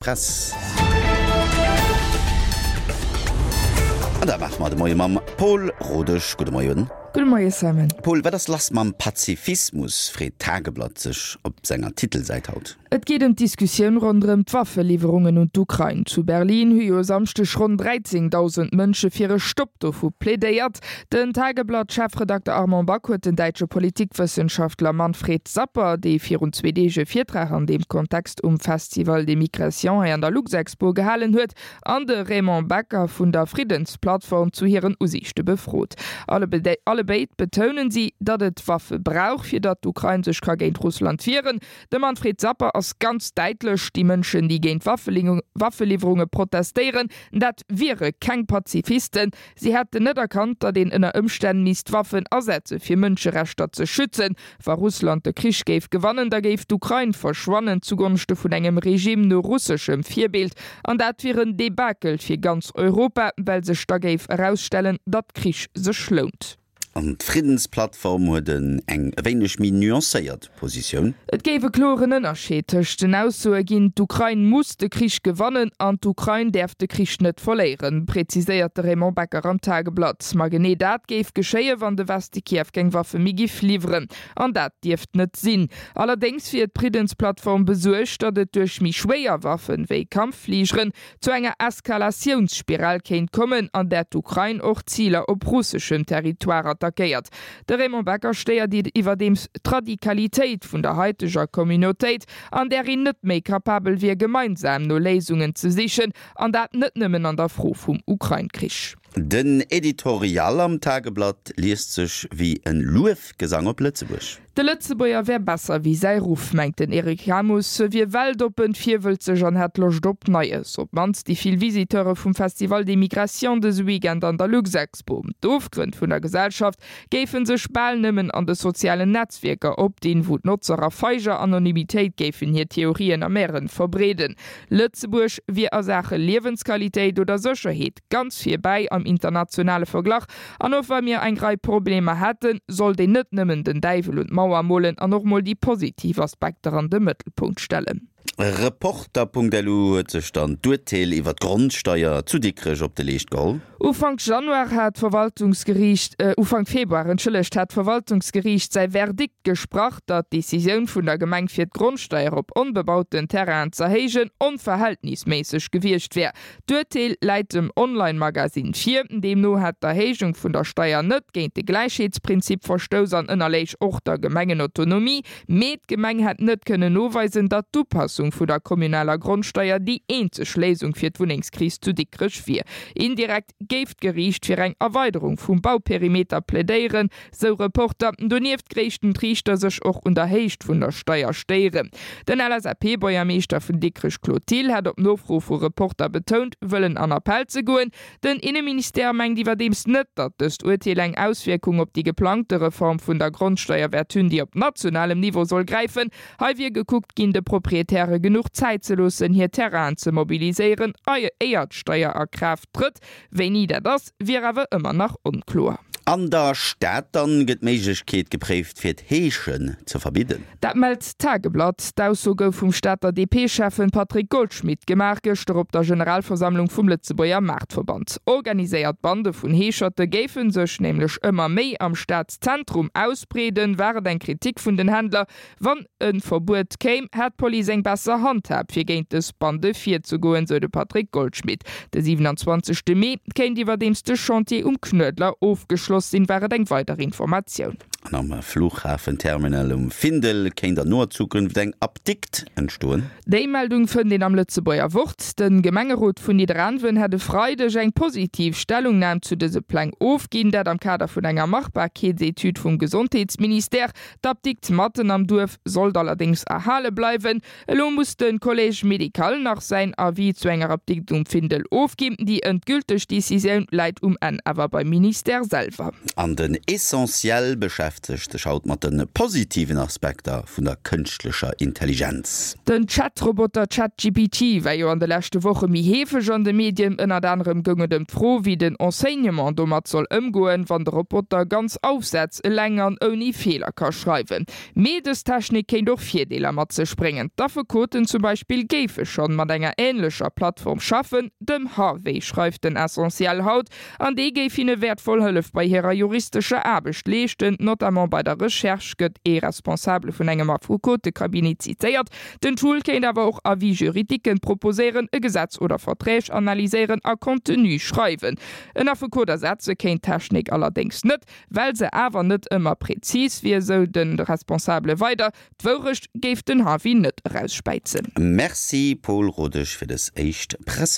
Press. An dat maache mer de Moie mam Paul Rodesch. Gudde Moien. Gudde Moie Simon. Paul, wat ass lass mam Pazifismus, freet d'Tageblatt sech op senger Titelsäit haut. Et geet ëm d'Diskussioun ronderëm d'Waffeliwwerungen un d'Ukrain. Zu Berlin hu jo e Samschdeg ronn 13.000 Mënsche fir e Stopp dovu plädéiert. Den Tageblatt-Chefredakter Armand Back huet den däitsche Politikwëssenschaftler Manfred Sapper, dee virun zwee Deeg e Virtrag an deem Kontext um Festival des Migrations hei an der Luxexpo gehalen huet, an de Raymond Becker vun der Friddensplattform zu hiren Usiichte befrot. Allebéid betounen si, datt et Waffe brauch, fir datt d'Ukrain sech ka géint Russland wieren. De Manfred Sapper ass ganz däitlech, Déi Mënschen, déi géint Waffeliwwerunge protestéieren, dat wiere keng Pazifisten. Si hätten net erkannt, datt een ënner Ëmstänn misst Waffen asetze fir Mënscherechter ze schützen. Wa Russland de Krich géif gewannen, da géif d'Ukrain verschwannen zugonschte vun engem Regime no russeschem Virbild. An dat wier en Debakel fir ganz Europa, well sech da géif erausstellen, datt Krich sech lount. An d'Friddensplattform huet eng e wéineg méi nuancéiert Positioun. Et géif e kloren Ënnerscheed tëscht den Aussoe ginn, d'Ukrain muss de Krich gewannen an d'Ukrain däerf de Krich net verléieren, präziséiert de Raymond Becker am Tageblatt. Ma genee dat géif geschéien, wann de Weste Kiew keng Waffe méi giff liwweren. An dat dierft net sinn. Allerdéngs wier d'Friddensplattform besuergt, datt et duerch méi schwéier Waffen, wéi Kampffligeren, zu enger Eskalatiounsspiral kéint kommen, an där d'Ukrain och Ziler op russeschem Territoire attackéiert. De Raymond Becker stéiert iwwerdeems d'Radikalitéit vun der haiteger Communautéit, an där een net méi capabel wier gemeinsam no Léisungen ze sichen, an dat net nëmmen an der Fro vum Ukrain-Krich. Den Editorial am Tageblatt liest sech wéi en Luefgesang op Lëtzebuerg. De Lëtzebuerger wär besser wéi säi Ruff, mengt den Eric Hamus. E wier weltoppen, virwëlzeg an hätt Loscht op Neies. Op d'mannst déi vill Visiteure vum Festival des Migrations dëse Weekend an der Luxexpo. D'Ofgrënn vun der Gesellschaft géife sech bal nëmmen an de sozialen Netzwierker opdinn, wou d'Notzer a feiger Anonymitéit géifen hir Theorien a Mären verbreeden. Lëtzebuerg wier a Saache Liewensqualitéit oder Sécherheet ganz virbäi am internationale Verglach. An och wa mir eng Rei Problemer hätten, sollt een net nëmmen den Däiwel un d'Mauer molen an och mol déi positiv Aspekter an de Mëttelpunkt stellen. Reporter.lu huet sech dann d'Urteel iwwer d'Grondsteier zu Dikrech op de Leescht geholl. Ufank Januar hat d'Verwaltungsgeriicht, Ufank Februar, entschëllegt, hat d'Verwaltungsgeriicht säi Verdikt gesprach, datt d'Decisioun vun der Gemeng fir d'Grondsteier op onbebauten Terrainen z'erhéijen onverhältnisméisseg gewiescht wär. D'Urteel läit dem Online-Magasinn vir. Deemno hätt d'Erhéijung vun der Steier net géint de Gläichheetsprinzip verstouss an ënnerléich och der Gemengenautonomie. Mee d'Gemeng hätt net kënnen noweisen, datt d'Upassung vu der kommunaler Grondsteier déi eenzeg Léisung fir d'Wunnengskris zu Dikrech wier. Indirekt géif d'Geriicht fir eng Erweiderung vum Bauperimeter plädéieren, Sou Reporter. Donieft gréischten d'Riichter sech och un der Héicht vun der Steier stéieren. Den LSAP-Buergermeeschter vun Dikrech Claude Thill hat op Nofro vu Reporter betount, wëllen an Appell ze goen. Den Inneministère mengt iwwerdeems net, datt dëst Urteel eng Auswierkung op déi geplangte Reform vun der Grondsteier wäert hunn, déi op nationalem Niveau soll gräifen. Hei wier gekuckt ginn, de Proprietäre genuch Zäit ze loossen, hir Terrainen ze mobiliséieren, éier d'Steier a Kraaft trëtt. Wéini dat ass, wier awer ëmmer nach onkloer. An der Stad dann gëtt d'Méiglechkeet gepréift fir d'Heeschen ze verbidden. Dat mellt d'Tageblatt. D'Ausso gouf vum Stater DP-Schäffen Patrick Goldschmidt gemaach, gëschter op der Generalversammlung vum Lëtzebuerger Maartverband. Organiséiert Bande vun Heescherte géife sech nämlech ëmmer méi am Stadszentrum ausbreeden, war et eng Kritik vun den Händler. Wann e Verbuet kéim, hätt d'Police eng besser Handhab, fir géint dës Bande virzegoen, sou de Patrick Goldschmidt. De 27 Mee kéint iwwerdeems de Chantier um Knuedler ofgeschloss sinn, war et eng weider Informatioun. An am Fluchhafenterminal um Findel kéint an noer Zukunft eng Apdikt entstoen. Déi Meldung fënnt een am Lëtzebuerger Wort. De Gemengerot vun Nidderaanwen hätt e Freideg eng positiv Stellungnam zu dëse Pläng ofginn, dat am Kader vun enger Machbarkeetsetüd vum Gesondheetsministère. D'Apdikt matten am Duerf sollt allerdéngs erhale bleiwen. Elo muss de Collège médical nach säin Avis zu enger Apdikt um Findel ofginn. Déi endgülteg Decisioun läit um Enn awer beim Ministère selwer. An den Essentiel beschäftegt. beschäftegt sech haut mat de positiven Aspekter vun der kënschtlecher Intelligenz. Den Chat-Roboter ChatGPT war jo an de leschte Woche méi heefeg an de Medien. Ënnert anerem goung et ëm d'Fro, wéi den Enseignement domat soll ëmgoen, wann de Roboter ganz Aufsätz eleng an ouni Feeler ka schreiwen. Mee dës Technik kéint och Virdeeler mat sech bréngen. D'Affekoten zum Beispill géife schonn mat enger änlecher Plattform schaffen, dem Harvey, schreift den Essentiel haut. An dee géif hinne wäertvoll Hëllef bei hirer juristescher Aarbecht leeschten, notamment bei der Recherche, gëtt ee Responsabele vun engem Affekotecabinet zitéiert. Den Tool kéint awer och Avis juridiquen proposéieren, e Gesetz oder Verträg analyséieren a Contenu schreiwen. En Affekot ersetze kéint d'Technik allerdéngs net, well se awer net ëmmer prezis wier, sou de Responsabele weider. D'Wourecht géif den Harvey net erausspäizen. Merci Paul Rodesch fir des éischt Presse.